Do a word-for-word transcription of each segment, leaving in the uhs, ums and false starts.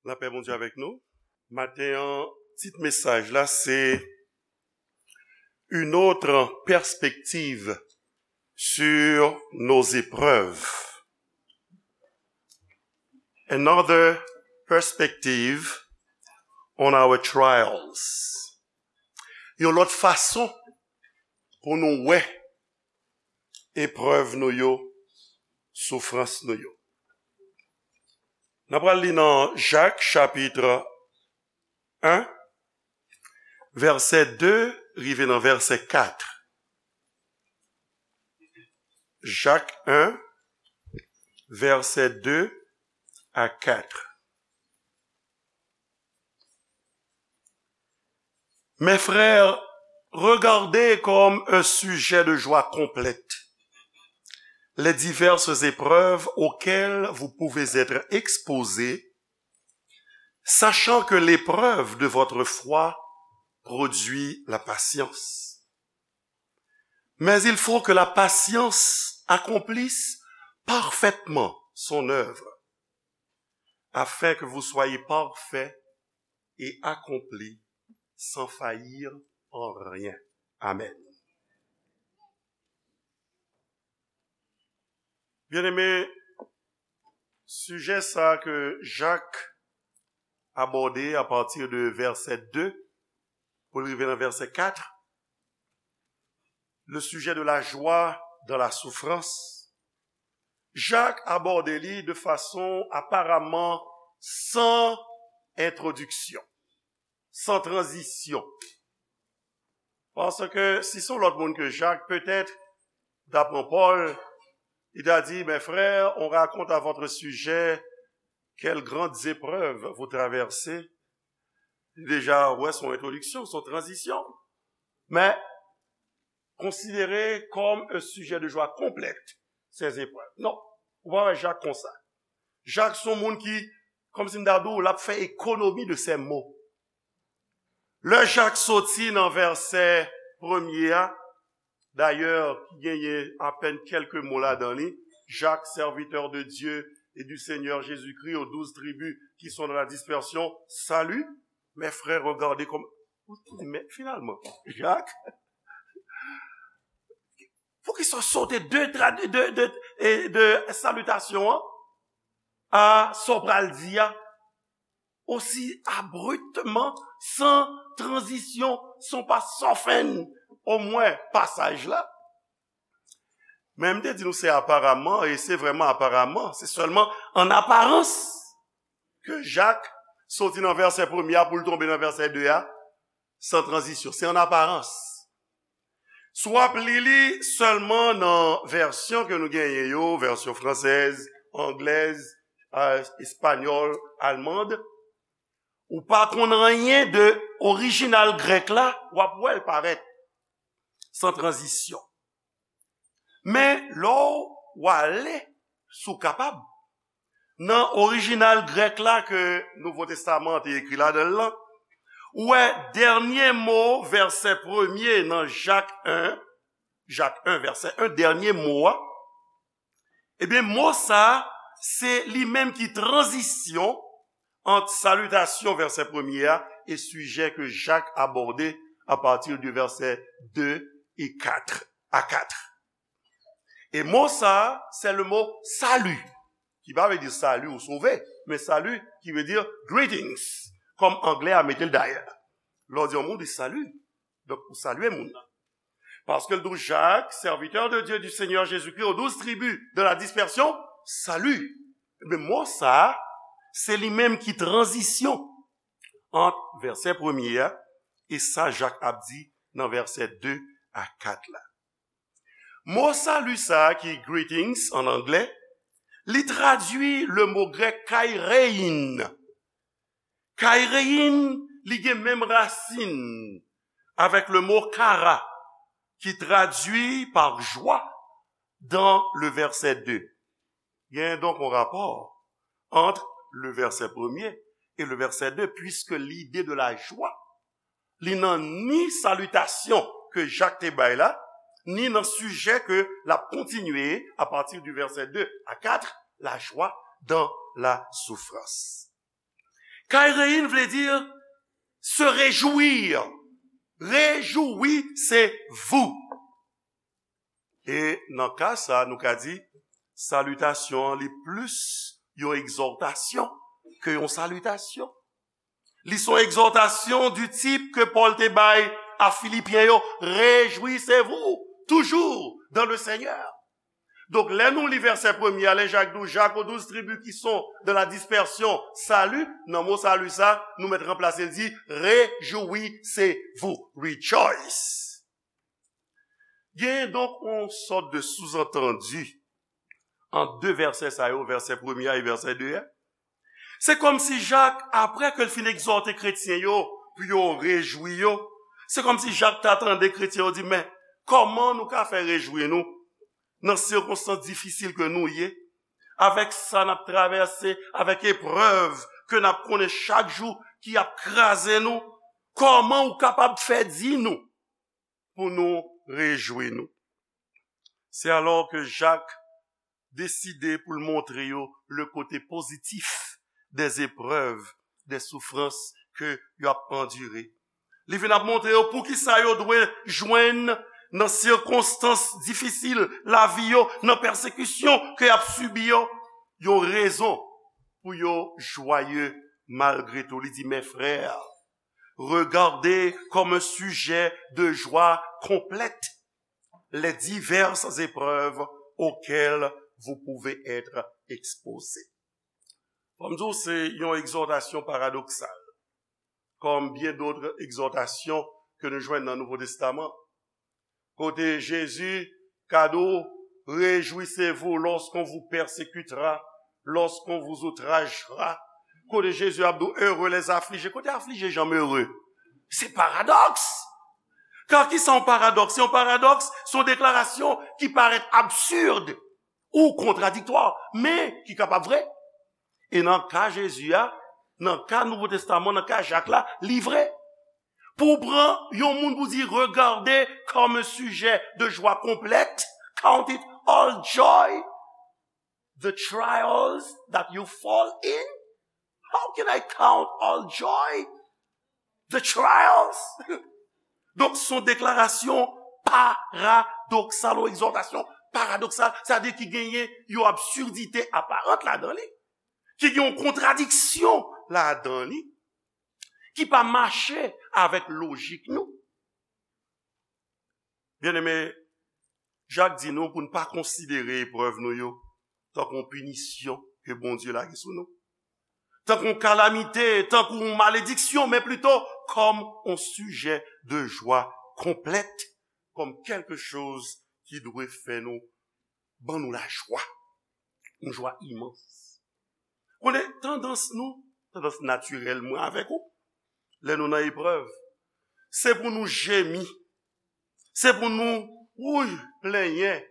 Lapè Bondye avèk nou. Maten an, tit mesaj la se Une autre perspective sur nos épreuves. Another perspective on our trials. Yon lòt fason pou nou wè eprèv nou yo, soufrans nou yo. N ap pral li nan Jak chapit en, vèsè de rive nan vèsè kat. Jak en, vèsè de a kat. Mes frères, regardez comme un sujet de joie complète les diverses épreuves auxquelles vous pouvez être exposés, sachant que l'épreuve de votre foi produit la patience. Mais il faut que la patience accomplisse parfaitement son œuvre, afin que vous soyez parfaits et accomplis sans faillir en rien. Amen. Byeneme, sijè sa ke Jak abòde apati de vèsè de pou l rive nan vèsè kat, le sujet de la joie dans la souffrance, Jak abòde li de fason aparaman san entwodiksyon, san tranzisyon. Paske si se yon lòt moun ke Jak, petèt, ta pran Pòl, li ta di, mes frères, on raconte à votre sujet quelles grandes épreuves vous traversez. Li deja wè se yon entwodiksyon, se yon tranzisyon. Men, considéré comme un sujet de joie complète, ces épreuves. Non, ou pa wè Jak konsa. Jak se yon moun ki, kòmsi m ta di w, l ap fè ekonomi de ses mots. Lè Jak soti nan vèsè premye a, dayè, ki genyen apèn kèlke mo ladan li, Jacques, serviteur de Dieu et du Seigneur Jésus-Christ, aux douze tribus qui sont dans la dispersion, salut, mes frères, regardez comme, men finalman, Jak, poukisa w sote de, tra- de, de, e de salitasyon an a sa w pral di a, osi abruptman, san tranzisyon, san pa soften omwen pasaj la? Men m te di nou se aparaman, e se vrèman aparaman, se sèlman an aparans ke Jak soti nan vèsè premye a pou l tonbe nan vèsè de a, san tranzisyon. Se an aparans. Si w ap li li sèlman nan vèsyon ke nou genyen yo, vèsyon fransèz, anglèz, a, espanyòl, almand, ou pa konn anyen de orijinal grèk la, w ap wè l parèt san tranzisyon. Men lè w ale, si w kapab, nan orijinal grèk la ke Nouvo Testaman an te ekri ladan l lan, ou wè dènye mo vèsè premye nan Jak en, Jak en vèsè en, dènye mo a, ebyen, mo sa a, se li menm ki tranzisyon ant salitasyon vèsè premye a e sijè ke Jak abòde apati de vèsè de e kat, a kat. E mo sa a, se le mo salut, ki pa vle di sali ou sove, men salut ki vle di greetings, kòm anglè a mete l dayè. Lè w di yon moun, ou di salut. Donk, ou salye moun nan. Paske l di w, Jacques, serviteur de Dieu, du Seigneur Jésus-Christ, aux douze tribus de la dispersion, salut. Ebyen, mo sa a, se li menm ki tranzisyon ant vèsè premye a e sa Jak ap di nan vèsè de a kat la. Mo salut sa a ki greetings an anglè, li tradui le mo grèk kairein. Kairein, li gen menm rasin avèk le mo kara, ki tradui par joie dans le verset deux. Gen donk yon rapò ant le vèsè premye e le vèsè de, puiske lide de la jwa, li nan ni salitasyon ke Jak te bay la, ni nan sijè ke l ap kontinye apati di vèsè de a kat, la joie dans la souffrance. Kairein vle di se rejwi. Réjouissez-vous. E nan ka sa, nou ka di, salitasyon an li plis yon egzòtasyon ke yon salitasyon. Li se yon egzòtasyon du type ke Pòl te bay a Filipyen yo, réjouissez-vous toujours dans le Seigneur. Donk, lè nou li vèsè premye a, lè Jak di w, Jaques aux douze tribus qui sont dans la dispersion, salut, nan mo salut sa, nou mèt ranplase l di, réjouissez-vous, rejoice. Genyen donk yon sòt de souzantandi ant de vèsè sa yo, vèsè premye a e vèsè de a. Se kòmsi Jak, apre ke l fin egzòte kretyen yo pou yo rejwi yo, se kòmsi Jak ta tande kretyen yo di, men, kòman nou ka fè rejwi nou nan sikonstans difisil ke nou ye, avèk sa n ap travèse, avèk eprèv ke n ap konnen chak jou ki ap kraze nou, kòman ou kapab fè di nou pou nou rejwi nou? Se alò ke Jak deside pou l montre yo le kote pozitif des épreuves, des souffrances ke yo ap andire. Li vin ap montre yo poukisa yo dwe jwenn nan sikonstans difisil lavi yo, nan pèsekisyon ke y ap sibi yo, yon rezon pou yo jwaye malgre tou. Li di, mes frères, regardez comme un sujet de joie complète les diverses épreuves auxquelles vous pouvez être exposés. Fò m di w, se yon egzòtasyon paradoksal, kòm byen dòt egzòtasyon ke nou jwenn nan Nouvo Testaman. Kote Jezi ka di w, réjouissez-vous lorsqu'on vous persécutera, lorsqu'on vous outragera. Kote Jezi ap di w, heureux les affligés. Kote aflije janm ere? Se paradòks. Ka ki sa yon paradòks? Se yon paradòks, se yon deklarasyon ki parèt absid ou kontradiktwa, men ki kapab vre. E nan ka Jezi a, nan ka Nouvo Testaman, nan ka Jak la, li vre. Pou w pran yon moun pou di, regardez comme un sujet de joie complète, count it all joy, the trials that you fall in. How can I count all joy? The trials. Donk, se yon deklarasyon paradoksal, yon egzòtasyon paradoksal, sa vle di ki genyen yon absidite aparant ladan li, ki gen yon kontradiksyon ladan li, ki pa mache avèk lojik nou. Byeneme, Jak di nou pou n pa konsidere eprèv nou yo tankou yon pinisyon ke Bondye lage sou nou, tankou yon kalamite, tankou yon malediksyon, men plito kòm yon sijè de jwa konplèt, kòm kèlke choz ki dwe fè nou, ban nou lajwa, yon jwa imans. Konnen tandans nou, tandans natirèl mwen avèk ou, lè nou nan eprèv, se pou nou jemi, se pou nou, wouy, plenyen,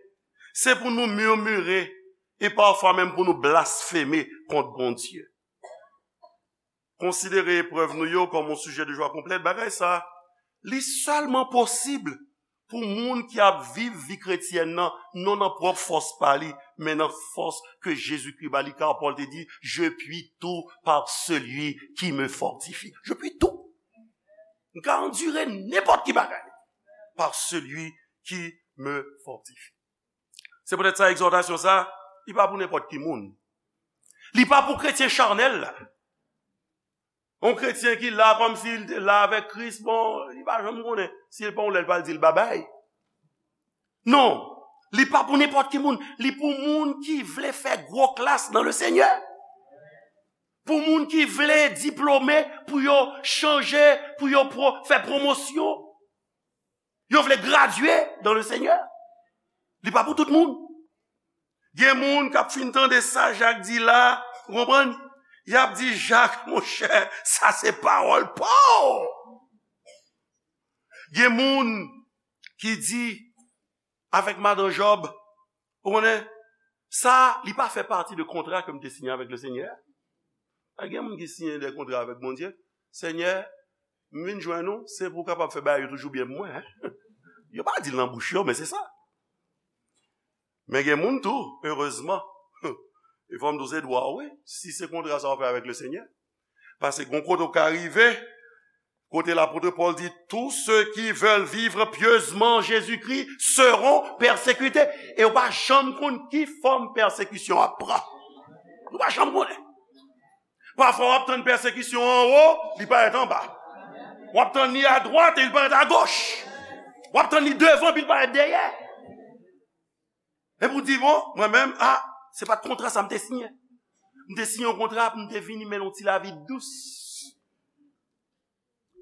se pou nou mimire, e pafwa menm pou nou blasfeme kont Bondye. Konsidere eprèv nou yo kòm yon sijè de jwa konplèt, bagay sa, li sèlman posib pou moun ki ap viv vi kretyèn nan, non nan pwòp fòs pa li, men nan fòs ke Jezikri ba li, kar Pòl te di, je puis tout par celui qui me fortifie. Je puis tout. M ka andire nenpòt ki bagay par celui qui me fortifie. Se poutèt sa, egzòtasyon sa, li pa pou nenpòt ki moun. Li pa pou kretyen chanèl la. Yon kretyen ki la kòmsi l te la avèk Kris, bon, li pa janm konnen. Si l pa yon lè, l pral di l babay. Non, li pa pou nenpòt ki moun. Li pou moun ki vle fè gwo klas nan le Senyè. Pou moun ki vle diplome, pou yo chanje, pou yo pro, fè pwomosyon. Yo vle gradye dans le Seigneur. Li pa pou tout moun. Gen moun k ap fin tande sa Jak di la, ou konprann? Y ap di, Jak, monchè, sa se pawòl pa w. Gen moun ki di, avèk madan Jòb, ou konnen, sa, li pa fè pati de kontra ke m te siyen avèk le Senyè. A gen moun ki siyen de kontra avèk Bondye. Senyè, m vin jwenn ou, se pou w kapab fè bagay yo toujou byen pou mwen, en. Yo pa di l nan bouch yo, men se sa. Men gen moun tou, erezman, e fò m di w se dwa w, wi, si se kontra sa w fè avèk le Senyè. Paske gon kote w ka rive, kote lapot Pòl di, tous ceux qui veulent vivre pieusement en Jésus-Christ seront persécutés. E w pa janm konn ki fòm pèsekisyon ap pran. Ou pa janm konnen. Pafwa w ap tann pèsekisyon anwo, li parèt anba. W ap tann li adwat e li parèt agoch. W ap tann li devan epi li parèt dèyè. Epi w di, bon, mwen menm, a, se pa t kontra sa m te siyen. M te siyen yon kontra pou m te vini mennen yon ti lavi dous.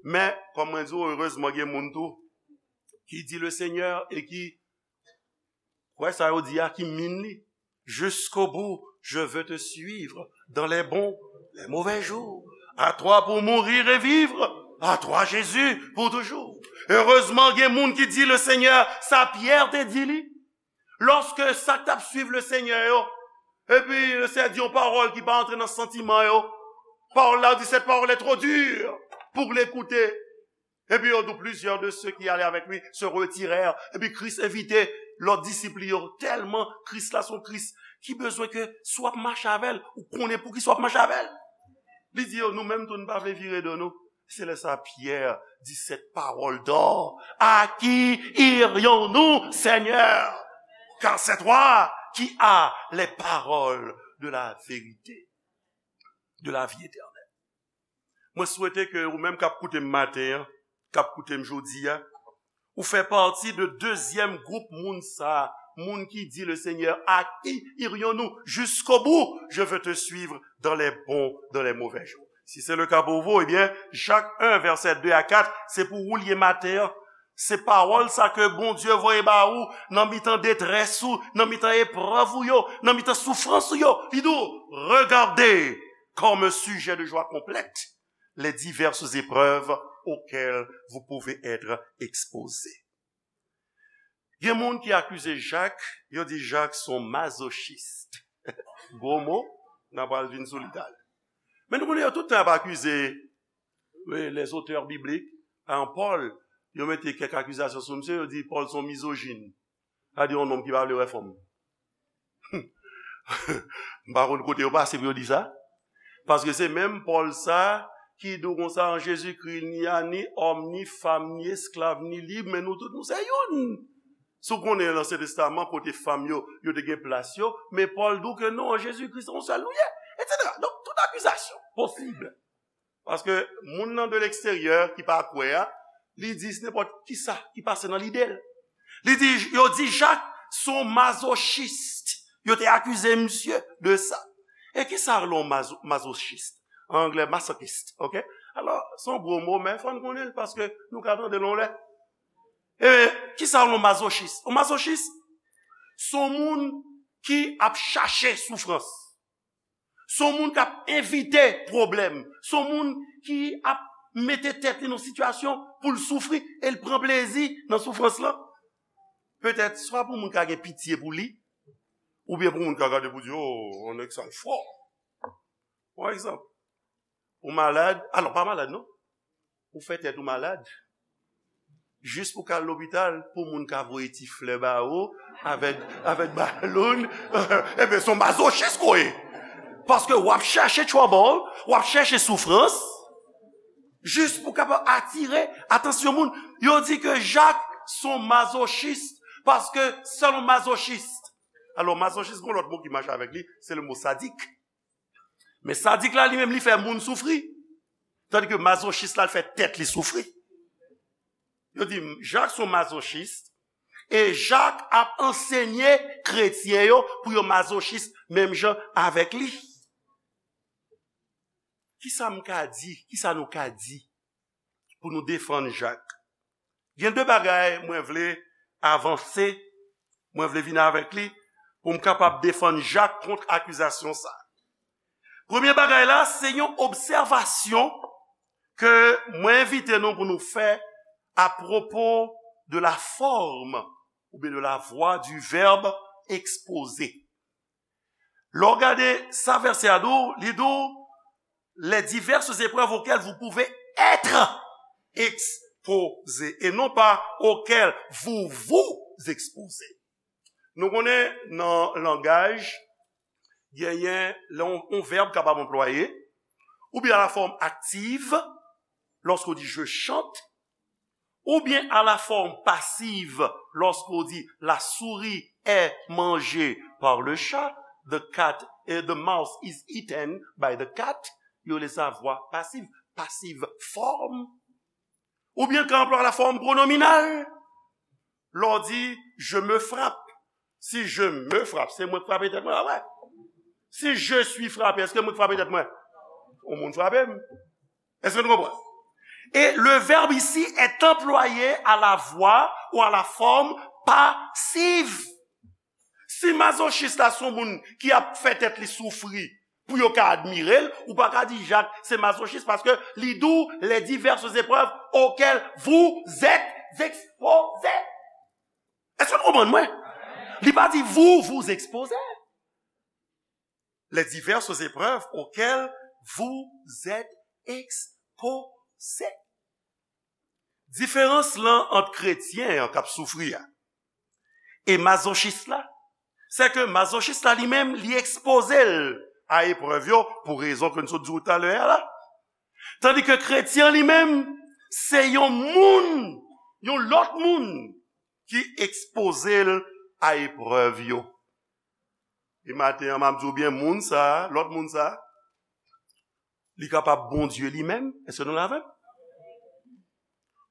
Men, kòm mwen di w, erezman gen moun tou ki di le Seigneur e ki kwè sa yo di a ki min li. Jusqu'au bout, je veux te suivre dans les bons, les mauvais jours. À toi pour mourir et vivre, à toi Jésus pour toujours. Erezman gen moun ki di le Seigneur, sa Pyè te di li. Lòske sa k t ap swiv le Seigneur yo, epi le Seigneur di yon pawòl ki pa antre nan santiman yo, pawòl la di, cette parole est trop dure pour l'écouter. Epi yo di, plusieurs de ceux qui allaient avec lui se retirèrent. Epi Kris envite lòt disip li yo. Tèlman Kris la se yon Kris ki bezwen ke si w ap mache avè l, ou konnen poukisa w ap mache avè l. Li di yo, nou menm tou, nou pa vle vire do nou. Se lè sa Pyè di cette parole d'or, à qui irions-nous, Seigneur? Car c'est toi qui as les paroles de la vérité, de la vie éternelle. Mwen swete ke ou menm k ap koute m maten an, k ap koute m jodi a, ou fè pati de dezyèm gwoup moun sa a, moun ki di, le Seigneur, à qui irions-nous? Jusqu'au bout, je veux te suivre dans les bons, dans les mauvais jours. Si c'est le cas pour vous, eh bien, Jacques un, verset deux à quatre, se pou ou l ye maten an. Se pawòl sa ke Bondye voye ba ou nan mitan detrès ou, nan mitan eprèv ou yo, nan mitan soufrans ou yo. Li di w, regardez comme sujet de joie complète les diverses épreuves auxquelles vous pouvez être exposés. Gen moun ki akize Jak, yo di Jak se yon mazochist. Gwo mo, n a pral vin sou li talè. Men nou konnen yo tout tan ap akize, wi, les auteurs bibliques, an Pòl, yo mete kèk akizasyon sou misye, yo di Pòl se yon mizojin. Sa di yon nonm ki pa vle wè fanm. M pa konn kote yo pase pou yo di sa. Paske se menm Pòl sa ki di w konsa, an Jezikri, ni a ni òm, ni fanm, ni esklav, ni lib, men nou tout nou se youn. Si w konnen Ansyen Testaman, kote fanm yo, yo te gen plas yo, men Pòl di w ke non, an Jezikri, se yon sèl nou ye, etsetera. Donk, tout akizasyon posib. Paske moun nan de leksteryè ki pa kwè a, li di se nenpòt kisa ki pase nan lide l. Li di, yo di Jak se yon mazochist. Yo te akize misye de sa. E kisa rele yon mazo-, mazochist? An anglè, masochist, ok? Alò, se yon gwo mo, men fò n konnen l paske nou ka tande l yon lè. E kisa rele yon mazochist? Yon mazochist, se yon moun ki ap chache soufrans. Se yon moun k ap envite pwoblèm. Se yon moun ki ap mete tèt li nan sitiyasyon pou l soufri e l pran plezi nan soufrans lan. Petèt, swa pou moun ka gen pitye pou li, oubyen pou moun ka gade pou di, oh, on nèg sa l fò. Pa egzanp, ou malad, alò, pa malad non, ou fè tèt ou malad, jis pou ka al lopital, pou moun ka voye ti flè ba ou, avèk, avèk baloun, ebyen, se yon mazochis ke w ye. Paske w ap chèche trouble, w ap chèche soufrans, jis pou kapab atire atansyon moun. Yo di ke Jak se yon mazochis, paske sèl yon mazochis. Alò, mazochis, gen yon lòt mo ki mache avèk li, se le mo sadik. Men sadik la, li menm, li fè moun soufri. Tandike mazochis la, l fè tèt li soufri. Yo di, Jak se yon mazochis, e Jak ap ansenye kretyen yo pou yo mazochis menm jan avèk li. Kisa m ka di? Kisa nou ka di pou nou defann Jak? Gen de bagay mwen vle avanse, mwen vle vin avèk li pou m kapab defann Jak kont akizasyon sa. Premye bagay la, se yon obsèvasyon ke mwen envite nou pou nou fè apwopo de la forme oubyen de la voix du verbe exposé. Lè w gade sa vèsè a di w, li di w, les diverses épreuves auxquelles vous pouvez être exposés et non pas auxquelles vous vous exposez. Nou konnen nan langaj, genyen lè yon, yon vèb kapab anplwaye, Ou bien à la forme active, lorsqu'on dit je chante, ou bien à la forme passive, lorsqu'on dit la souris est mangée par le chat, the cat, eh, the mouse is eaten by the cat, yo rele sa vwa pasiv, passive form. Ou bien kan anplwa la form pronominal, lè w di je me frappe. Si je me frappe, se mwen k frape tèt mwen, pa vre? Si je suis frappé, èske mwen k frape tèt mwen? Yon moun frape m. Èske nou konprann? Et le verbe ici est employé à la voix ou à la forme passive. Si mazochis la se yon moun ki ap fè tèt li soufri pou yo ka admire l, ou pa ka di Jak se mazochis paske li di w les diverses épreuves auxquelles vous êtes exposés. Èske nou konprann mwen? Li pa di vous vous exposez. Les diverses épreuves auxquelles vous êtes exposés. Diferans lan ant kretyen an k ap soufri a e mazochis la, se ke mazochis la li menm, li ekspoze l a eprèv yo pou rezon ke n sot di w talè a la. Tandi ke kretyen li menm, se yon moun, yon lòt moun ki ekspoze l a eprèv yo. E maten an, m ap di w byen, moun sa, lòt moun sa, li kapab Bondye li menm. Èske nou la avè m?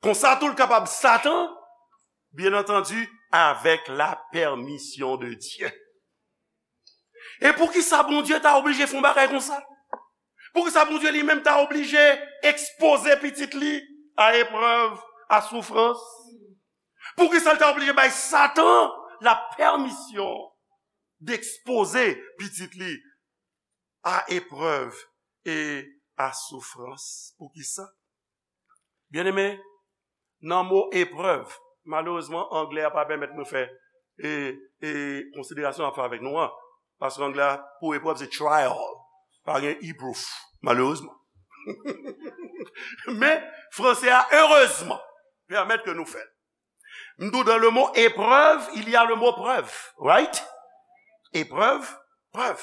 Konsa tou, l kapab Satan, bien entendu, avec la permission de Dieu. E poukisa Bondye ta oblije fè yon bagay konsa? Poukisa Bondye li menm ta oblije ekspoze pitit li a eprèv, a soufrans? Poukisa l ta oblije bay Satan la pèmisyon dekspoze pitit li a eprèv e a soufrans? Poukisa? Byeneme, nan mo eprèv, malerezman, anglè a pa pèmèt mwen fè e, e konsiderasyon ap fè avèk nou an. Paske anglè a, pou eprèv, se trial. Pa gen e proof, malerezman. Men, franse a, erezman, pèmèt ke nou fè l. M di w, dans le mot épreuve, il y a le mot preuve, right? Eprèv, prèv.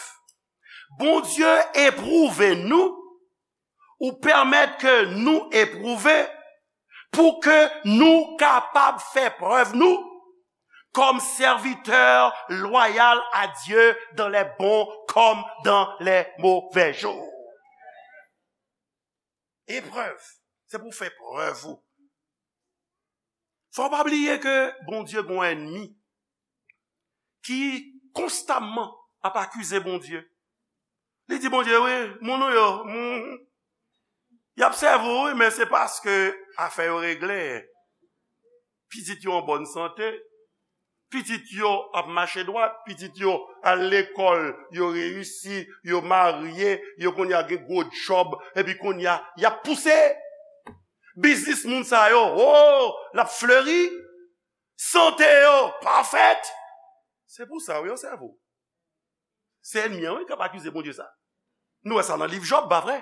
Bondye epwouve nou, ou pèmèt ke nou epwouve, pou ke nou kapab fè prèv nou comme serviteur loyal à Dieu dans les bons comme dans les mauvais jours. Eprèv, se pou fè prèv ou. Fò w pa bliye ke Bondye gon ènmi ki konstamman ap akize Bondye. Li di Bondye, wi, moun ou yo, moun, y ap sèvi w, wi, men se paske afè yo regle. Pitit yo an bòn sante, pitit yo ap mache dwat, pitit yo al lekòl, yo reyisi, yo marye, yo kounye a gen gwo djòb, epi kounye a, y ap pouse. Biznis moun sa yo, o, l ap fleri. Sante yo, pafèt. Se pou sa, wi, yo sèvi w. Se ènmi an, wi, k ap akize Bondye sa. Nou wè sa nan liv Jòb, pa vre?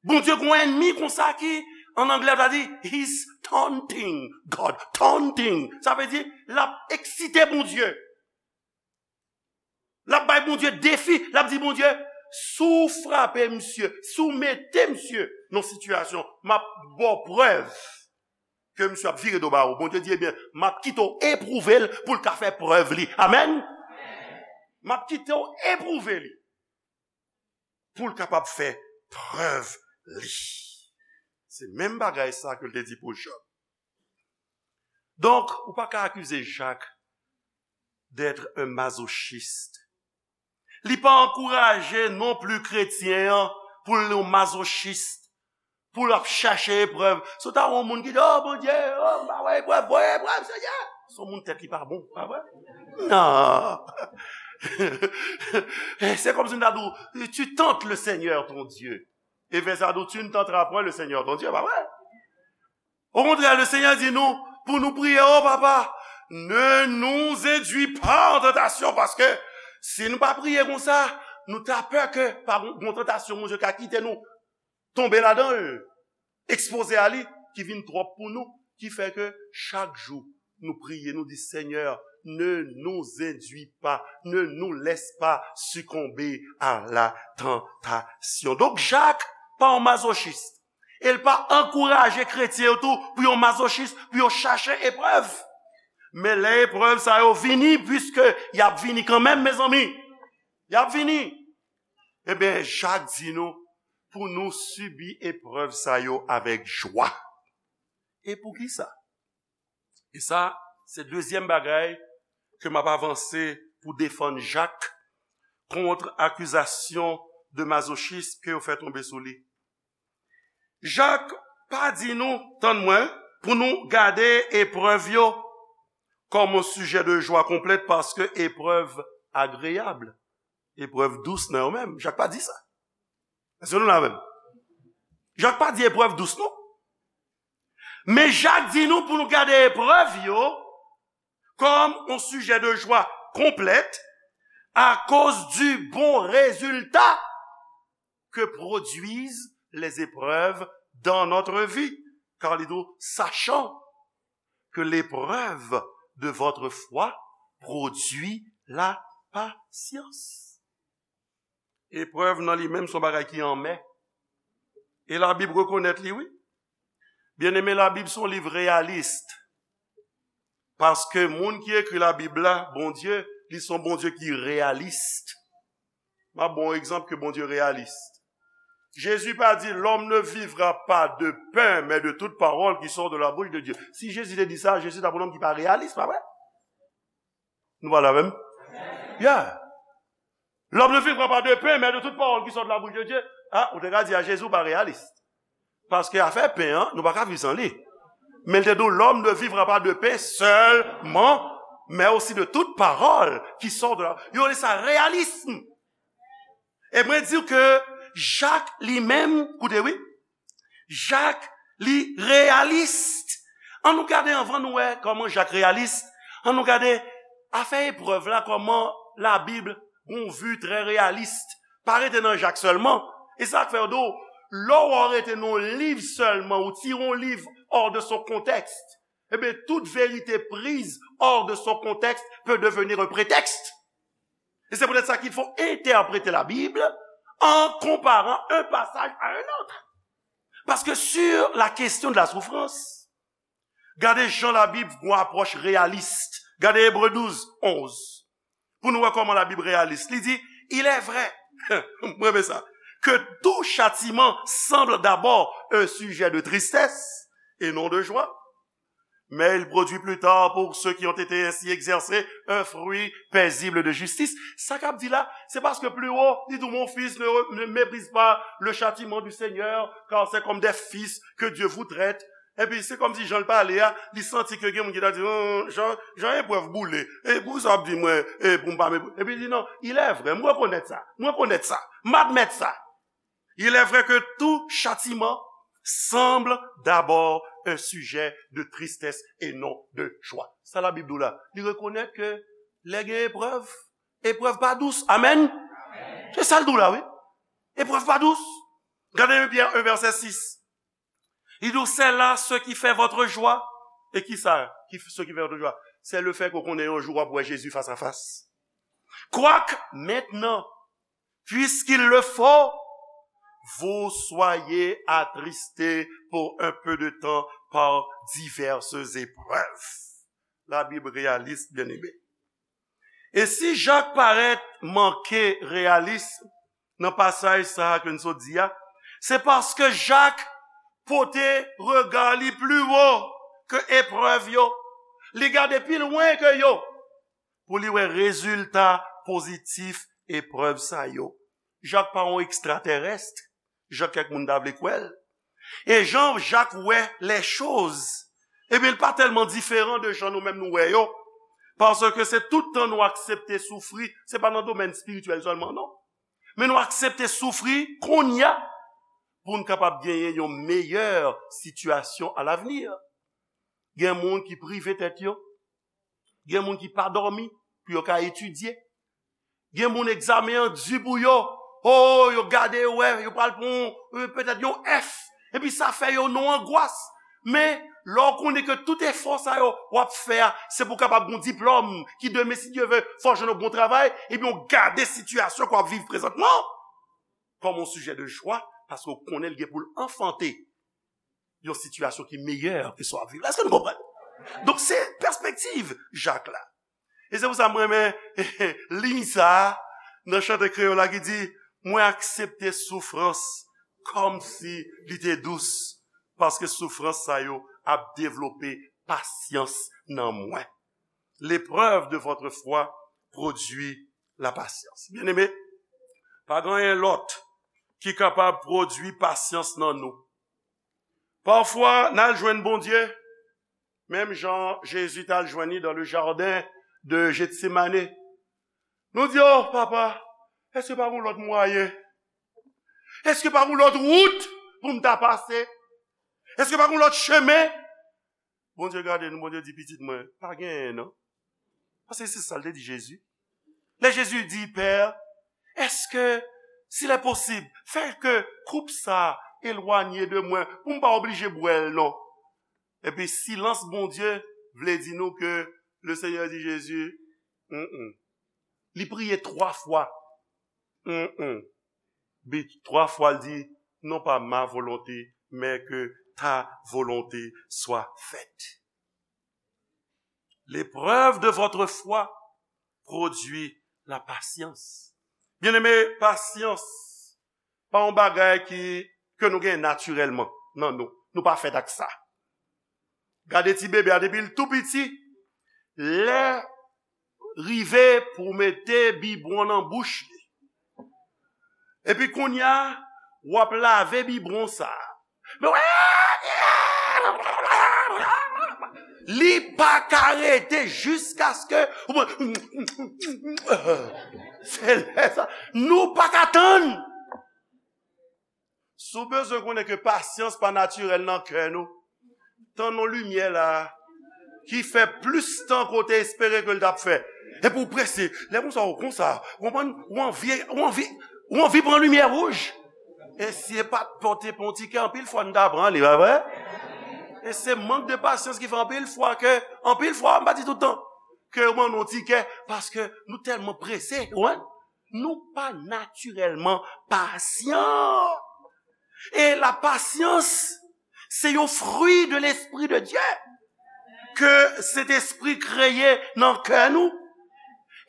Bondye gon ènmi konsa ki, an anglè, ta di, he's taunting God. Taunting. Sa vle di, l ap eksite Bondye. L ap bay Bondye defi. L ap di Bondye, si w frape misye, si w mete misye nan sitiyasyon, m ap ba w prèv ke misye ap vire do ba ou. Bondye di, ebyen, m ap kite w epwouve l pou l ka fè prèv li. Amèn? M ap kite w epwouve li pou l kapab fè prèv li. Se menm bagay sa ke l te di pou Jòb. Donk, ou pa ka akize Jak d'être un masochiste. Li pa ankouraje non pli kretyen an pou l yon mazochis, pou l ap chache eprèv. Si w ta wè yon moun ki di, o Bondye, o, m pa wè eprèv, voye eprèv, Senyè. Se yon moun tèt li pa bon, pa vre? Non. Se kòmsi m ta di w, tu tentes le Seigneur ton Dieu. E vèsè a di w, tu ne tenteras point le Seigneur ton Dieu, pa vre? Okontrè, le Senyè di nou pou nou priye, o Papa, ne nous induis pas en tentation, paske si nou pa priye konsa, nou ta pè ke pa gon, gon tantasyon Bondye ka kite nou tonbe ladan l, ekspoze a li, ki vin twòp pou nou, ki fè ke chak jou nou priye, nou di, Senyè, Ne nous induis pas, ne nous laisse pas succomber à la tentation. Donk, Jak pa yon mazochis. E l pa ankouraje kretyen yo tou pou yo mazochis, pou yo chache eprèv. Men lè eprèv sa yo vini, piske y ap vini kanmenm, mezanmi. Y ap vini. Ebyen, Jak di nou pou nou sibi eprèv sa yo avèk jwa. E poukisa? E sa, se dezyèm bagay ke m ap avanse pou defann Jak kont akizasyon de mazochism ke yo fè tonbe sou li. Jak pa di nou, tann mwen, pou nou gade eprèv yo kòm yon sijè de jwa konplèt, paske eprèv agreyab, eprèv dous nan yo menm. Jak pa di sa. Èske nou la menm? Jak pa di eprèv dous, non. Men Jak di nou pou nou gade eprèv yo comme un sujet de joie complète à cause du bon résultat que produisent les épreuves dans notre vie. Car il dit, sachant que l'épreuve de votre foi produit la patience. Eprèv nan li menm se yon bagay ki anmè. E Labib rekonèt li, wi. Byeneme, Labib se yon liv reyalis. Paske moun ki ekri Labib la, Bondye, li se yon Bondye ki reyalis. M ap ba w yon egzanp ke Bondye reyalis. Jezi pa di, l'homme ne vivra pas de pain, mais de toute parole qui sort de la bouche de Dieu. Si Jezi te di sa, Jezi t ap yon nonm ki pa reyalis, pa vre? Nou pa la menm? Yeah. L'homme ne vivra pas de pain, mais de toute parole qui sort de la bouche de Dieu. Ah, ou te ka di a Jezi ou pa reyalis. Paske afè pen an, nou pa ka viv san li. Men l te di w, l'homme ne vivra pas de pain seulement, mais aussi de toute parole qui sort de la. Yo rele sa reyalism. E mwen di w ke Jak li menm, koute wi, Jak li reyalis. Ann nou gade anvan nou wè kòman Jak reyalis. Ann nou gade afè eprèv la, kòman Labib gon vi trè reyalis. Pa rete nan Jak sèlman. E sa k fè yo di w, lè w rete nan yon liv sèlman, ou tire yon liv hors de son contexte, ebyen, toute vérité prise hors de son contexte peut devenir un prétexte. Et c'est peut-être ça qu'il faut interpréter la Bible en comparant un passage à un autre. Parce que sur la question de la souffrance, gade jan Labib gon apwòch reyalis. Gade Ebre douz, onz. Pou nou wè kòman Labib reyalis. Li di, il est vrai, mwen renmen sa, que tout châtiment semble d'abord un sujet de tristesse et non de joie. Mais il produit plus tard pour ceux qui ont été ainsi exercés un fruit paisible de justice. Sa k ap di la, se paske pli wo, li di, mon fils, ne, ne méprise pas le châtiment du Seigneur, car c'est comme des fils que Dieu vous traite. Epi se kòmsi jan l pale a, li santi ke gen moun ki ta di, "Hum, jan, jan eprèv boule. E pou sa w ap di mwen, e pou m pa mepri." Epi li di, "Non, il est vrai, m rekonèt sa, m rekonèt sa, m admèt sa." Il est vrai que tout châtiment semble d'abord un sujet de tristesse et non de joie. Sa Labib di w la. Li rekonèt ke lè gen eprèv, eprèv pa dous. Amèn. Se sa l di w la, wi. Eprèv pa dous. Gade Pyè un, vèsè sis. Li di w, c'est là ce qui fait votre joie. E ki sa? Ki, ce qui fait votre joie? C'est le fait ke w konnen yon jou w ap wè Jezi fas a fas. Quoique maintenant, puisqu'il le faut, vous soyez attristés pour un peu de temps par diverses épreuves. Labib reyalis, byeneme. E si Jak parèt manke reyalis nan pasaj sa a ke n sot di a, se paske Jak pote rega li pli wo ke eprèv yo. Li gade pi lwen ke yo pou li wè rezilta pozitif eprèv sa yo. Jak pa yon ekstratèrès, jan kèk moun ta vle kwè l. E jan Jak wè lèchoz, ebyen, l pa tèlman diferan de jan nou menm nou wè yo. Paske se tout tan nou aksepte soufri, se pa nan domèn espirityèl sèlman, non. Men nou aksepte soufri kounye a pou n kapab genyen yon meyè sitiyasyon alavni. Gen moun ki prive tèt yo, gen moun ki pa dòmi pou yo ka etidye. Gen moun egzamen an di pou yo. Oh, yo gade, yo wè, yo pral pran yon, euh, petèt yon F. Epi sa fè yo nan angwas. Men, lè w konnen ke tout efò sa yo w ap fè a, se pou w kapab gen yon diplòm, ki demen, si Dye vle, fò w jwenn yon bon travay, ebyen, w gade sitiyasyon ke w ap viv prezantman kòm yon sijè de jwa, paske w konnen l gen pou l anfante yon sitiyasyon ki meyè ke sa w ap viv la. Èske nou konprann? Donk, se pèspektiv Jak la. E se pou sa mwen renmen liy sa a nan chante kreyòl la ki di, mwen aksepte soufrans kòmsi li te dous, paske soufrans sa yo ap devlope pasyans nan mwen. L'épreuve de votre foi produit la patience. Byeneme, pa gen anyen lòt ki kapab pwodui pasyans nan nou. Pafwa, n al jwenn Bondye, menm jan Jezi t al jwenn li dans le jardin de Gethsemane. Nou di, oh, papa, èske pa gen lòt mwayen? Èske pa gen lòt wout pou m ta pase? Èske pa gen lòt chemen? Bondye gade nou, Bondye di, pitit mwen, pa genyen non. Paske se sa l te di Jezi. Lè Jezi di, Pè, èske, s'il est possible, fè ke koup sa elwanye de mwen, pou m pa oblije bwè l non. Epi silans Bondye vle di nou ke le Seigneur di Jezi, mm, mm. Li priye twa fwa. Mm, mm. Bi twa fwa l di, non pas ma volonté, mais que ta volonté soit faite. L'épreuve de votre foi produit la patience. Byeneme, pasyans pa yon bagay ki, ke nou gen natirèlman nan nou. Nou pa fèt ak sa. Gade ti bebe a, depi l tou piti, lè rive pou w mete bibwon nan bouch li. Epi kounye a, w ap lave bibwon sa a. Men w, li pa ka rete jiskaske, se lè sa, nou pa ka tann. Si w bezwen konnen ke pasyans pa natirèl nan kè nou, tann yon limyè la ki fè plis tan ke w te espere ke l t ap fè. Epi w prese. Lè konsa, w konsa, w konprann, w anvi, w anvi, w anvi pran limyè wouj. E si e pa t pou te pran yon tikè, anpil fwa n ta pran li, pa vre? E se mank de pasyans ki fè anpil fwa ke, anpil fwa, m pa di tout tan, ke yo ban nou yon tikè, paske nou tèlman prese, ou konprann? Nou pa natirèlman pasyan. E la pasyans, se yon fwi de Lespri de Dye ke Sentespri kreye nan kè nou.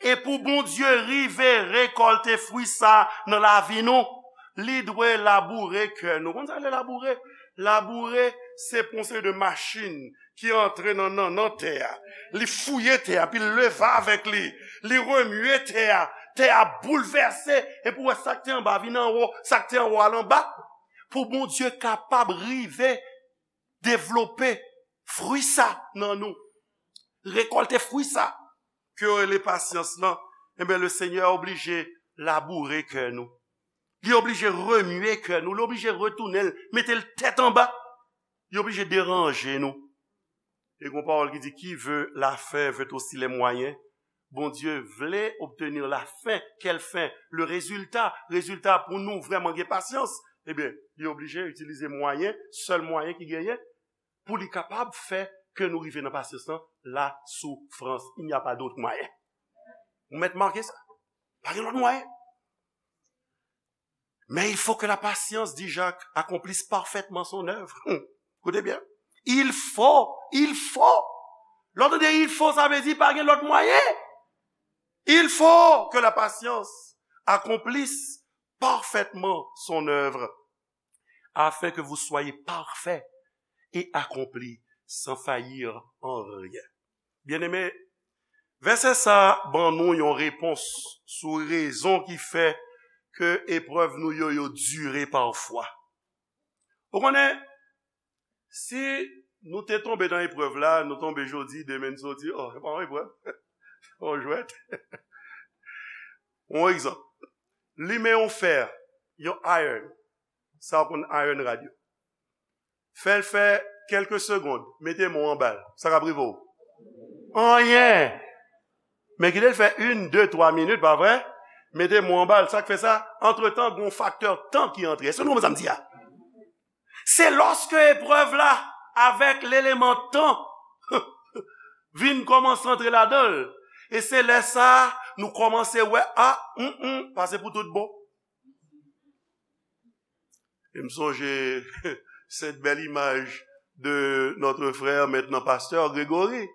E pou Bondye rive rekòlte fwi sa nan lavi nou, li dwe laboure kè nou. Konn sa le laboure? Laboure, se pran seri de machin ki antre nan, nan, nan tè a. Li fouye tè a, epi l leve avèk li. Li remye tè a. Tè a boulvèse, epi w wè sa k te anba vin anwo, sa k te anwo al anba. Pou Bondye kapab rive devlope fwi sa nan nou. Rekòlte fwi sa ke yo rele pasyans lan, enben, le Senyè oblije laboure kè nou. Li oblije remye kè nou, li oblije retounen l, mete l tèt anba. Li oblije deranje nou. E gon pawòl ki di, qui veut la fin veut aussi les moyens. Bondye vle obtenir la fin. Quelle fin? Le résultat. Résultat pou nou vrèman gen pasyans. Ebyen, li oblije itilize mwayen, sèl mwayen ki genyen, pou li kapab fè ke nou rive nan pasyans lan, la soufrans. Il n'y a pas d'autre moyen. Ou mèt make sa. Pa gen lòt mwayen. Mais il faut que la patience, dit Jacques, accomplisse parfaitement son œuvre. Hmm. Koute byen. Il faut, il faut. Lè w tande il faut, sa vle di pa gen lòt mwayen. Il faut que la patience accomplisse parfaitement son œuvre, afin que vous soyez parfaits et accomplis sans faillir en rien. Byeneme, vèsè sa a ban nou yon repons sou rezon ki fè ke eprèv nou yo, yo dire pafwa. Ou konnen, si nou te tonbe nan eprèv la, nou tonbe jodi, demen n soti, oh, se pa yon eprèv. Se pa yon jwèt. Yon egzanp. Limen yon fè, yon iron. Sa w konn iron rod yo. Fè l fè kèlke segonn, mete men w anba l. Sa k ap rive w? Anyen! Men kite l fè youn, de, twa minit, pa vre? Mete men w anba l. Sa k fè sa? Antretan, gen yon faktè tan ki antre. Èske nou konprann sa m di a? Se lòske eprèv la avèk leleman tan, vin kòmanse antre ladan l. E se lè sa a, nou kòmanse wè, a, mm, mm, pa se pou tout bon. E m sonje cette belle image de notre frère, maintenant pasteur Grégory,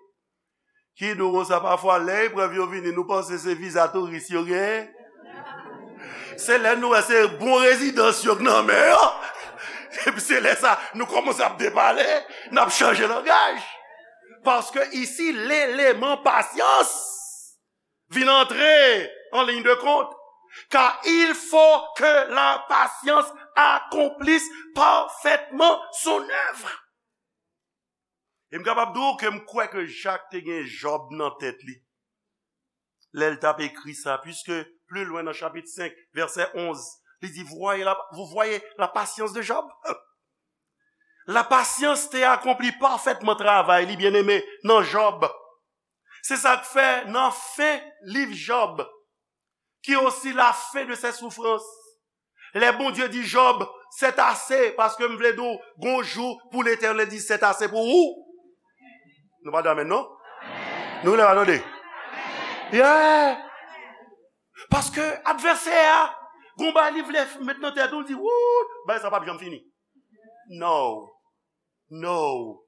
ki di w konsa, pafwa, lè eprèv yo vini, nou panse se viza touris yo genyen. Se lè nou wè se bon rezidans yo k nan men yo. Epi se lè sa, nou kòmanse ap depale, n ap chanje langaj. Paske isi, leleman pasyans vin antre en ligne de compte. Car il faut que la patience accomplisse parfaitement son œuvre. E m kapab di w ke m kwè ke Jak te gen Jòb nan tèt li lè l t ap ekri sa, puiske pli lwen nan chapit senk, vèsè onz, li di, voyez la, vous voyez la patience de Job? La pasyans te akonpli pafètman travay li, byeneme, nan Jòb. Se sa k fè nan fen liv Jòb, ki osi la fin de ses souffrances, lè Bondye di Jòb, c'est assez, paske m vle di w, gon jou pou Letènèl di, c'est assez pou ou. Nou pa di amèn, non? Nou lè pa tande. Yeah! Paske advèsè a, gon bagay li vle met nan tèt ou, li di, wout, bagay sa p ap janm fini. No. No.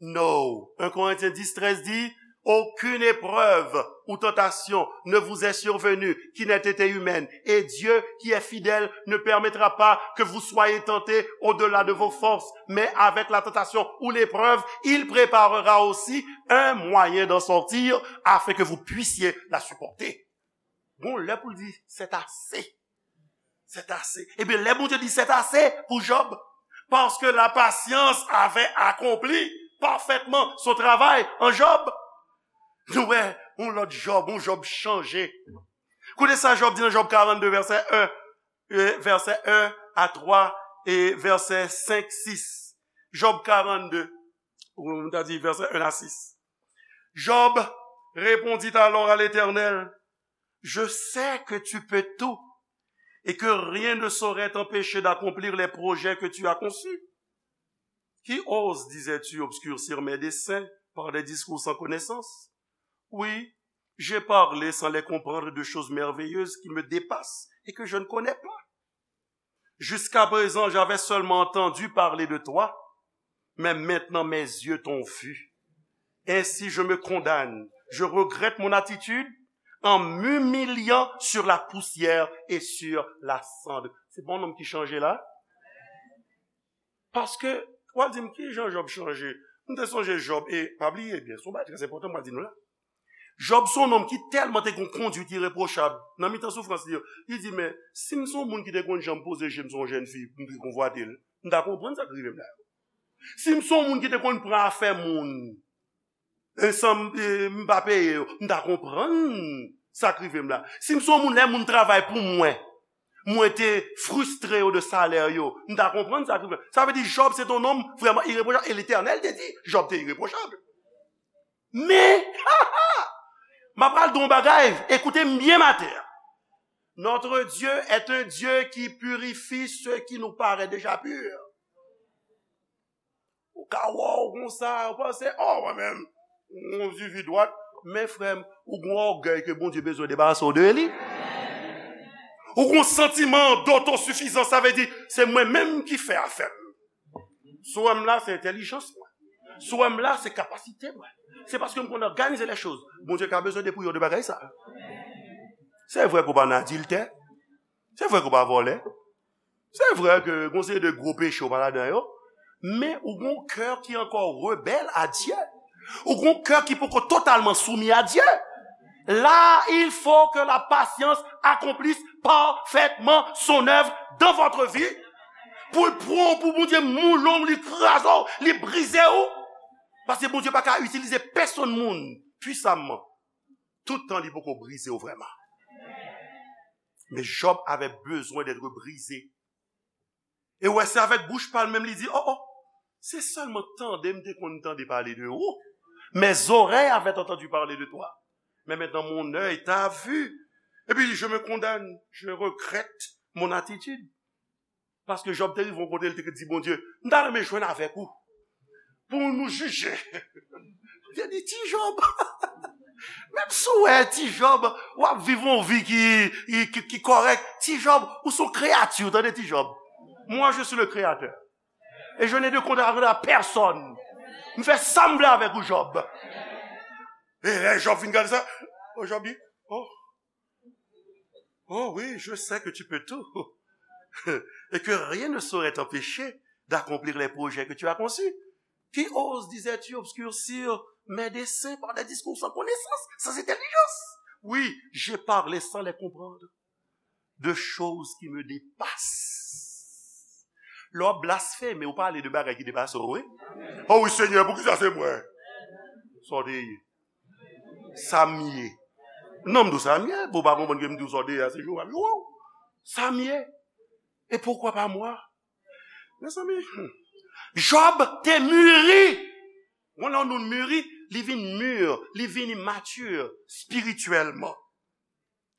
No. Un Corinthiens dix, treize dit, aucune épreuve ou tentation ne vous est survenue qui n'ait été humaine, et Dieu, qui est fidèle, ne permettra pas que vous soyez tentés au-delà de vos forces, mais avec la tentation ou l'épreuve, il préparera aussi un moyen d'en sortir afin que vous puissiez la supporter. Bon, lè pou l di, c'est assez. C'est assez. Ebyen, lè Bondye di, c'est assez pou Jòb, parce que la patience avait accompli parfaitement son travail en Job. Nou wè, yon lòt Jòb, yon Jòb chanje. Koute sa Jòb di nan Jòb karannde, vèsè en, e, vèsè en a twa, e vèsè senk, sis. Jòb karannde, ou nou ta di vèsè en a sis. Job répondit alors à l'Éternel, je sais que tu peux tout et que rien ne saurait t'empêcher d'accomplir les projets que tu as conçus. Qui ose, disais-tu, obscurcir mes desseins par des discours sans connaissance? Oui, j'ai parlé sans les comprendre de choses merveilleuses qui me dépassent et que je ne connais pas. Jusqu'à présent, j'avais seulement entendu parler de toi, mais maintenant mes yeux t'ont vu. Ainsi, je me condamne, je regrette mon attitude en m'humiliant sur la poussière et sur la cendre. Se pa yon nonm ki chanje la? Paske, w a di m, ki jan Jòb chanje? M te sonje Jòb, e pa bliye byen, se yon bagay trè enpòtan m pral di nou la. Jòb se yon nonm ki tèlman te gen yon kondwit irepwochab nan mitan soufrans li yo. Li di, men, si m se yon moun ki te konn janm poze je m sou yon jèn fi, m te konvwate l, m ta konprann sa k rive m la yo. Si m se yon moun ki te konn pran afè moun, e san m, e, m pa peye yo, m ta konprann sa k rive m la. Si m se yon moun, lè moun travay pou mwen, mwen te fristre yo de salè yo, m ta konprann sa k rive m. Sa vle di, Jòb se te yon nonm vrèman irepwochab, e Letènèl te di, Jòb te irepwochab. Men, m ap pral di w yon bagay, écoutez m bien maten an. Notre Dieu est un Dieu qui purifie ce qui nous paraît déjà pur. Ou ka wè w konsa, ou panse, oh, mwen menm, mwen vivi dwat. Men frè m, ou gon ògèy ke Bondye bezwen debarase w de li. Ou gon santiman dotosifizans, sa vle di, se mwen menm ki fè afè m. Sou wè m la, se entèlijans mwen. Sou wè m la, se kapasite mwen. Se paske m konn òganize lè choz. Bondye ka bezwen depouye w de bagay sa. Se vre ke w pa nan adiltè. Se vre ke w pa vòlè. Se vre ke gon seri de gwo peche w pa ladan yo. Men ou gon kè ki ankò rebèl a Dye. Ou gon kè ki poko totalman soumi a Dye. Là, il faut que la patience accomplisse parfaitement son œuvre dans votre vie. Pou l pran w, pou Bondye moule w, li kraze w, li brize w. Paske Bondye pa ka itilize pèsonn moun pwisamman toutan li poko brize w vrèman. Men Job avè bezwen d'être brisé. E w wè, se avèk bouch pa l menm li di, oh, oh, se sèlman tande m te konn tande pale de ou. Mes oreilles avaient entendu parler de toi. Mais maintenant mon œil t'a vu. Epi, je me condamne, je regrette mon attitude. Paske Jòb te rive yon kote, l te di Bondye, m ta renmen jwenn avèk ou. pou nou jije. Li di, ti Jòb, menm si w wè ti Jòb, w ap viv yon vi ki, ki, ki, ki kòrèk, ti Jòb, ou se yon kreyati, tande ti Jòb. Moi, je suis le créateur. Et je n'ai de compte à rendre à personne. M fè sa m vle avèk ou, Jòb. E lè Jòb fin gade sa, oh, Jòb di, oh, oh oui, je sais que tu peux tout. Et que rien ne saurait t'empêcher d'accomplir les projets que tu as conçus. Qui ose, disais-tu, obscurcir mes desseins par des discours sans connaissance, sans intelligence? Oui, j'ai parlé sans les comprendre de choses qui me dépassent. Lè w ap blasfeme, ou pale de bagay ki depase w, wi. Oh wi, Senyè, poukisa se mwen? Sa w te ye? Sa m ye. Non, m di w sa m ye. Pou w pa konprann ke m di w sa w te ye a, se jou w ap jwe w. Sa m ye. Et pourquoi pas moi? Mezanmi, hmm. Jòb te mûri. Wè lè yon moun mûri, li vin mûr, li vin immature spirituellement.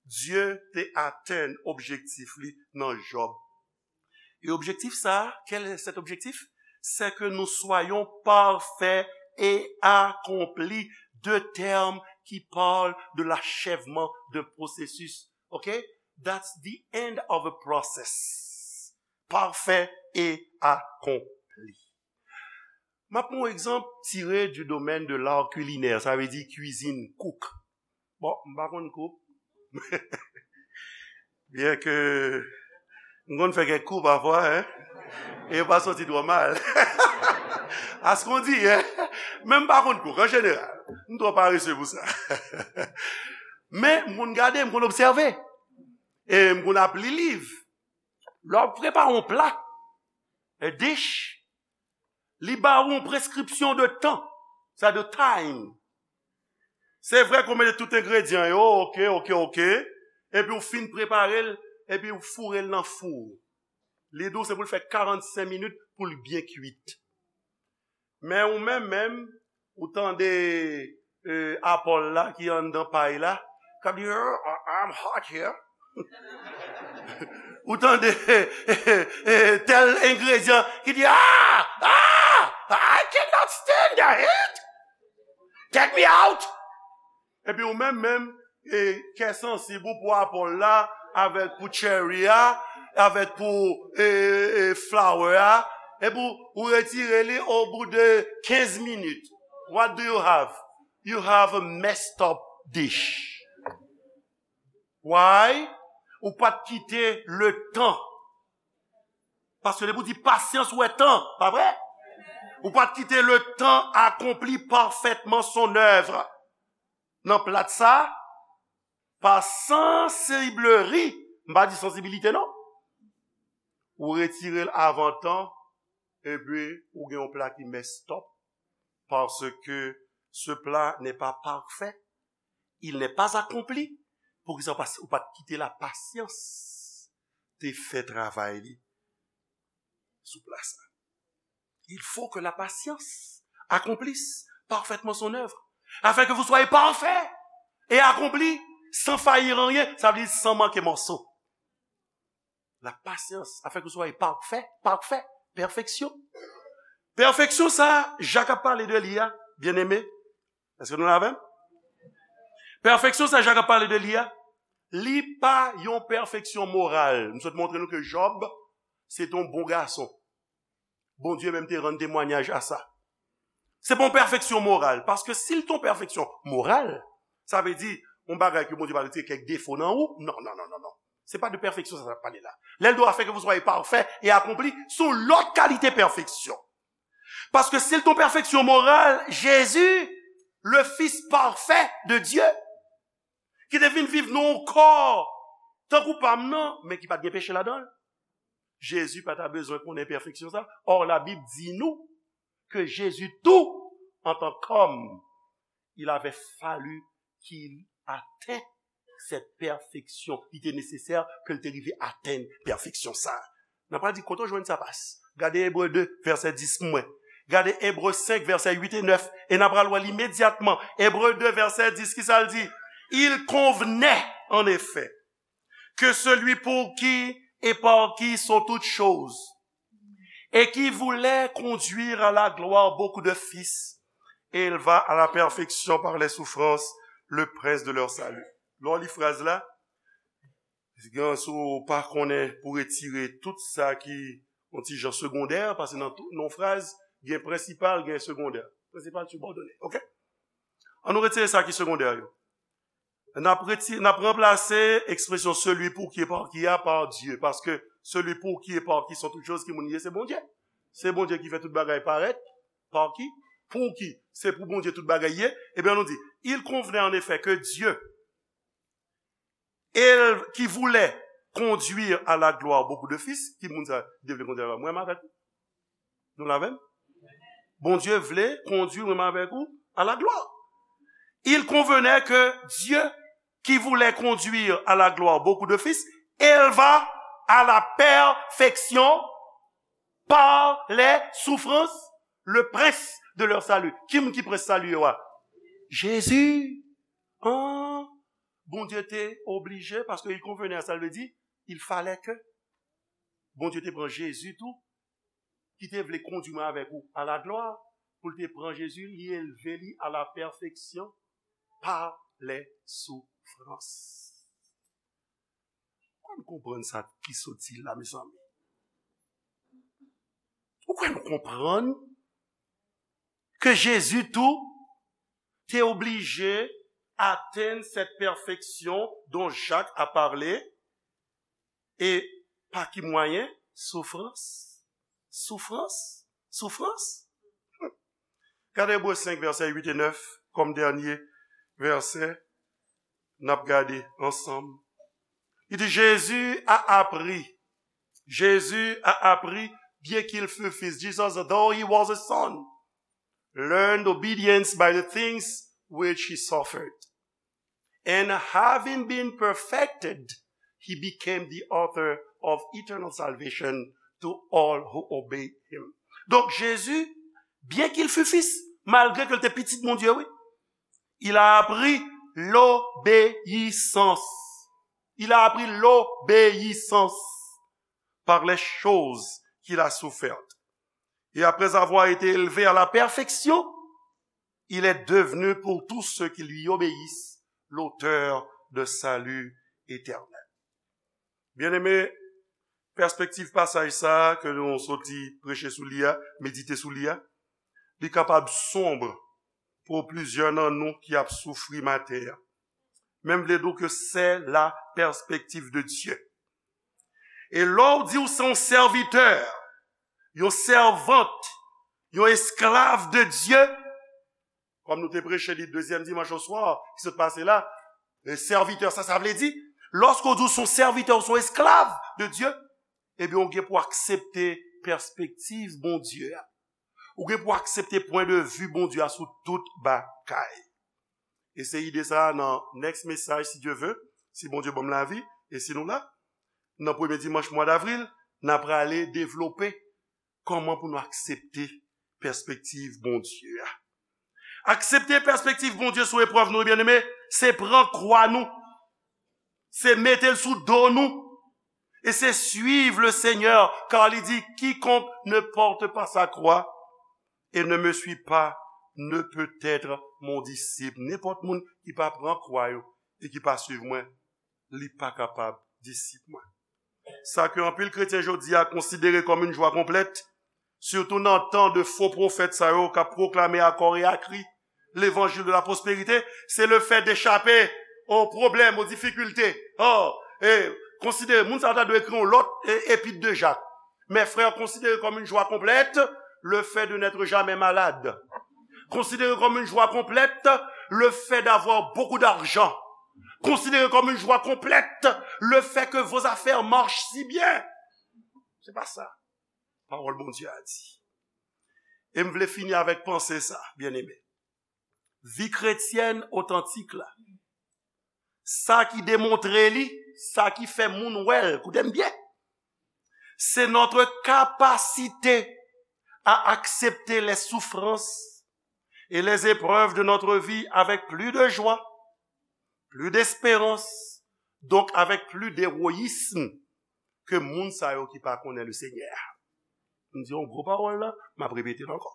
Dye te atenn objektif li nan Jòb. Et objectif ça, quel est cet objectif? C'est que nous soyons parfaits et accomplis, deux termes qui parlent de l'achèvement d'un processus. OK? That's the end of a process. Parfait et accompli. M ap pran yon egzanp tiré du domaine de l'art culinaire, sa vle di kwizin, cook. Bon, m pa konn cook. Byen ke m konn fè kèk kou pafwa, hein, e yo pa soti twò mal. Askondi, hein, men m pa konn cook an jeneral. M twò parese pou sa. Men m konn gade, m konn obsève. E m konn ap li liv. Lè w ap prepare yon pla, a dish, li ba ou yon preskripsyon de tan, sa de time. Se vre ke w mete tout engredyan yo, oke, oke, oke, epi w fin prepare l, epi w foure l nan fou. Li di w se pou l fè karannsenk minit pou l byen kwit. Men ou menm menm, ou tande, eh, apòl la ki anndan pay la, k ap di, "Oh, I'm hot here." Ou tande, eh, eh, eh, tèl engredyan ki di, "Ah, ah, I cannot stand the heat. Take me out." Epi ou menm menm, e, kè sansib ou pou apòl la, avèk pou cherry a, avèk pou, e, e, flour a, epi ou, ou retire li au bout de quinze minutes. What do you have? You have a messed up dish. Why? Ou pa t kite le tan. Paske depi w di pasyans, ou wè tan, pa vre? Ou pa t kite le tan accomplit parfaitement son œuvre. Nan plat sa, pa sansibleri, m pa di sansibilite non. Ou retire l avan tan, epi ou gen yon pla ki messed up, parce que ce plat n'est pas parfait, il n'est pas accompli. Poukisa ou pa, ou pa t kite lapasyans te fè travay li sou pla sa? Il faut que la patience accomplisse parfaitement son œuvre, afin que vous soyez parfaits et accomplis, sans faillir en rien, sa vle di san manke mòso. La patience, afin que vous soyez parfaits, parfaits, perfection. Pèfeksyon sa, Jak ap pale de li a, byeneme, èske nou la avè m? Pèfeksyon sa, Jak ap pale de li a, li pa yon pèfeksyon moral. M sot montre nou ke Jòb, se te yon bon gason. Bondye menm te rann temwayaj a sa. Se pa yon pèfeksyon moral, paske si l te yon pèfeksyon moral, sa vle di, yon bagay ke Bondye pa retire kèk defo nan ou, non, non, non, non, non. Se pa de pèfeksyon sa, sa pale la. Lè l di afin que vous soyez parfaits et accomplis, se yon lòt kalite pèfeksyon. Paske si l te yon pèfeksyon moral, Jezi, le Fils parfait de Dieu, ki te vin viv nan yon kò tankou pa m nan, men ki pa t gen peche ladan l. Jezi pa ta bezwen konnen pèfeksyon sa. Or, Labib di nou ke Jezi tou, antan kòm, il avait fallu qu'il atteigne cette perfection. Li te nesesè ke l te rive atenn pèfeksyon sa. N ap pral di, kote w jwenn sa pas? Gade Ebre de, vèsè dis pou mwen. Gade Ebre senk, vèsè uit e nèf. E n ap pral wè l imedyatman. Ebre de, vèsè dis, ki sa l di? Il convenait, en effet, que celui pour qui et par qui sont toutes choses, et qui voulait conduire à la gloire beaucoup de fils, éleva à la perfection par les souffrances le prince de leur salut. Lè w li fraz la, gen, si w pa konnen pou retire tout sa ki yon ti jan segondè, paske nan tout, nan fraz, gen prensipal, gen segondè. Prensipal sibòdone, oke? Ann nou retire sa ki segondè yo. N ap reti-, n ap ranplase ekspresyon celui pour qui et par qui a par Dieu, paske celui pour qui et par qui sont toutes choses ki moun ye, se Bondye. Se Bondye ki fè tout bagay parèt, par qui, pour qui, se pou Bondye tout bagay ye. Ebyen, nou di, il convenait en effet que Dieu, et qui voulait conduire à la gloire beaucoup de fils, ki moun sa, Bondye vle kondui a la, mwen menm avèk ou. Nou la menm? Bondye vle kondui mwen menm avèk ou à la gloire. Il convenait que Dieu, qui voulait conduire à la gloire beaucoup de fils, éleva à la perfection par les souffrances le prince de leur salut. Ki moun ki prens sali yo a? Jezi. An, Bondye te oblije, paske il convenait, sa vle di, il fallait que Bondye te pran Jezi tou, ki te vle kondui mwen avèk ou à la gloire, pou l te pran Jezi, li elve li à la perfection par les souffrances. Ou konn konprann sa ki sot di la, mezanmi? Ou konn konprann ke Jezi tou te oblije atenn cette perfection dont Jacques a parlé, e pa ki mwayen? Soufrans. Soufrans. Soufrans. Gade Ebre senk, vèsè uit e nèf, kòm dènye vèsè n ap gade ansanm. Li di, Jésus a appris, Jésus a appris, bien qu'il fût fils, Jesus, though he was a son, learned obedience by the things which he suffered. And having been perfected, he became the author of eternal salvation to all who obey him. Donk, Jezi, byen ke l fut fis, malgre ke l te pitit Bondye, wi, il a appris l'obéissance. Il a appris l'obéissance par les choses qu'il a souffertes. Et après avoir été élevé à la perfection, il est devenu pour tous ceux qui lui obéissent l'auteur de salut éternel. Byeneme, pèspektiv pasaj sa a ke nou soti preche sou li a, medite sou li a, li kapab sonb pou plizyè nan nou ki ap soufri maten an. Men m vle di w ke c'est la perspective de Dieu. E lè w di w se yon sèvitè, yon sèvant, yon esklav de Dye, kòm nou te preche li dezyèm dimanch oswa ki sot pase la, e sèvitè, sa, sa vle di, lòske w di w se yon sèvitè, w se yon esklav de Dye, ebyen, w gen pou aksepte pèspektiv Bondye a. Ou gen pou aksepte pwen de vi Bondye a sou tout bagay. E se ide sa a nan next mesaj, si Dye ve, si Bondye ban m lavi, e si nou la, nan premye dimanch mwa davril, n a prale devlope kòman pou nou aksepte pèspektiv Bondye a. Aksepte pèspektiv Bondye sou eprèv nou, byeneme, se pran kwa nou, se mete l sou do nou, e se suiv le Senyè, kar li di, quiconque ne porte pas sa croix et ne me suit pas ne peut être mon disciple. Nenpòt moun ki pa pran kwa yo e ki pa suiv mwen, li pa kapab disip mwen. Sa ke anpil kretyen jodi a konsidere kòm yon jwa konplèt, sitou nan tan de fo pwofèt sa yo k ap pwoklame a kò e a kri levanjil de la pwosperite, se le fè de chape o pwoblèm, o difikilte. Oh, e konsidere, moun sa yo ta dwe ekri yon lòt e, epit de Jak. Mes frères, considérez comme une joie complète le fait de n'être jamais malade. Considérez comme une joie complète le fait d'avoir beaucoup d'argent. Considérez comme une joie complète le fait que vos affaires marchent si bien. Se pa sa pawòl Bondye a di. E m vle fini avèk panse sa, byeneme. Vi kretyèn otantik la, sa ki demontre li, sa ki fè moun wè l, koute m byen, c'est notre capacité à accepter les souffrances et les épreuves de notre vie avec plus de joie, plus d'espérance, donc avec plus d'héroïsme que moun sa yo ki pa konnen le Seigneur. M di yon gwo pawòl la, m ap repete l ankò.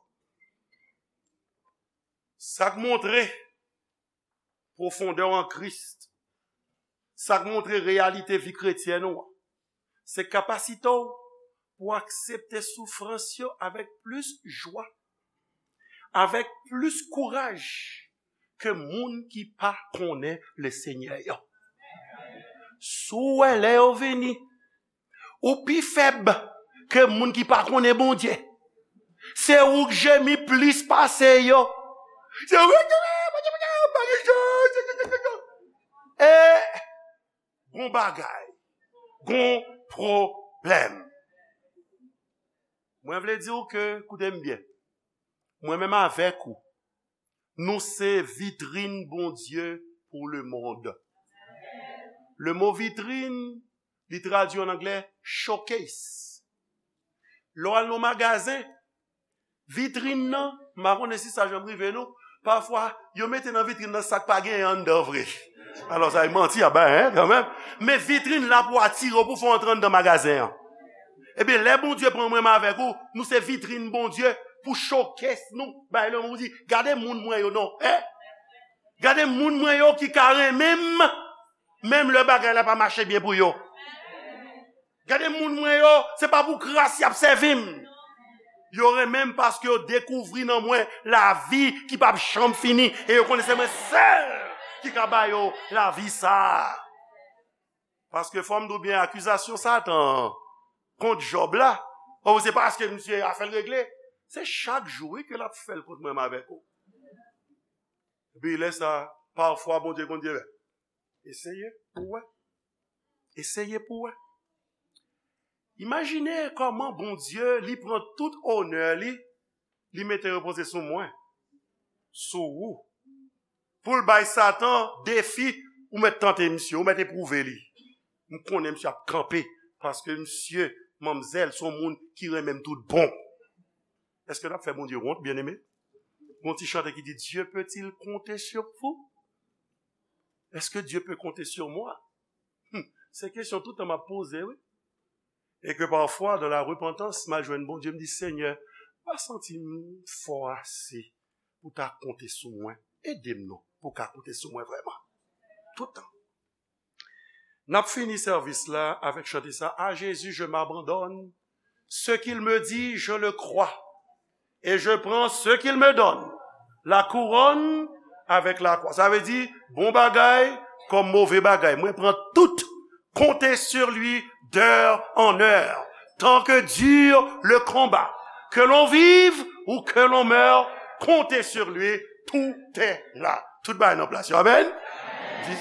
Sa k montre pwofondè w an Kris, sa k montre reyalite vi kretyèn ou an, se kapasite w pou aksepte soufrans yo avèk plis jwa, avèk plis kouraj ke moun ki pa konnen Lesenyè yo. Si w wè lè yo vini, ou pi fèb ke moun ki pa konnen Bondye. Se ou k jemi plis pase yo. Se ou k jemi, Bondye, Bondye, Bondye, Bondye. E gon bagay, gon pwoblèm. Mwen vle di w ke, koute m byen, mwen menm avèk ou, nou se vitrin Bondye pou lemonn. Le mo vitrin, li tradui an anglè showcase. Lè w al nan magazen, vitrin nan, m pa konnen si sa janm rive nou, pafwa, yo mete nan vitrin nan sa k pa genyen anndan vre. Alò, sa e manti a bay, en, kanmenm. Men vitrin la pou atire w, pou fè w antre anndan magazen an. Ebyen, lè Bondye pran mwen menm avèk ou, nou se vitrin Bondye pou showcase nou. Bay lemonn di, gade moun mwen yo non, en. Gade moun mwen yo ki ka renmen m, menm lè bagay la pa mache byen pou yo. Gade moun mwen yo, se pa pou kras y ap sèvi m. Yo renmen m paske yo dekouvri nan mwen lavi ki p ap janm fini. E yo konnen se mwen sèl ki ka ba yo lavi sa a. Paske fò m di w byen, akizasyon Satan an kont Jòb la, o, se paske misye afè l regle. Se chak jou, wi, ke l ap fè l kont mwen, m avèk ou. Epi lè sa, pafwa, Bondye konn di, eseye pou w wè. Eseye pou w wè. Imajine kòman Bondye, li pran tout onè li, li mete repoze sou mwen, sou ou. Pou l bay Satan defi, ou mèt tante misye, ou mèt epwouve li. M konnen misye ap kanpe, paske misye, manmzèl, se yon moun ki renmen m tout bon. Èske n ap fè Bondye wont, byeneme? Gon ti chante ki di, Dieu peut-il compter sur vous? Est-ce que Dieu peut compter sur moi? Hmm, se kesyon tout tan m ap poze, wi. E ke pafwa, dans la repentance, m al jwenn Bondye, m di, Senyè, m pa santi m fò ase pou ta konte sou mwen. Ede m non, pou w ka konte sou mwen vrèman. Tout tan. N ap fini sèvis la avèk chante sa, À Jésus, je m'abandonne. Ce qu'il me dit, je le crois. Et je prends ce qu'il me donne. La couronne avec la croix. Sa vle di, bon bagay kòm move bagay. Mwen pran tout. Comptez sur lui d'heure en heure. Tant que dure le combat. Que l'on vive ou que l'on meure, comptez sur lui, tout est là. Tout bagay nan plas yo. Amèn.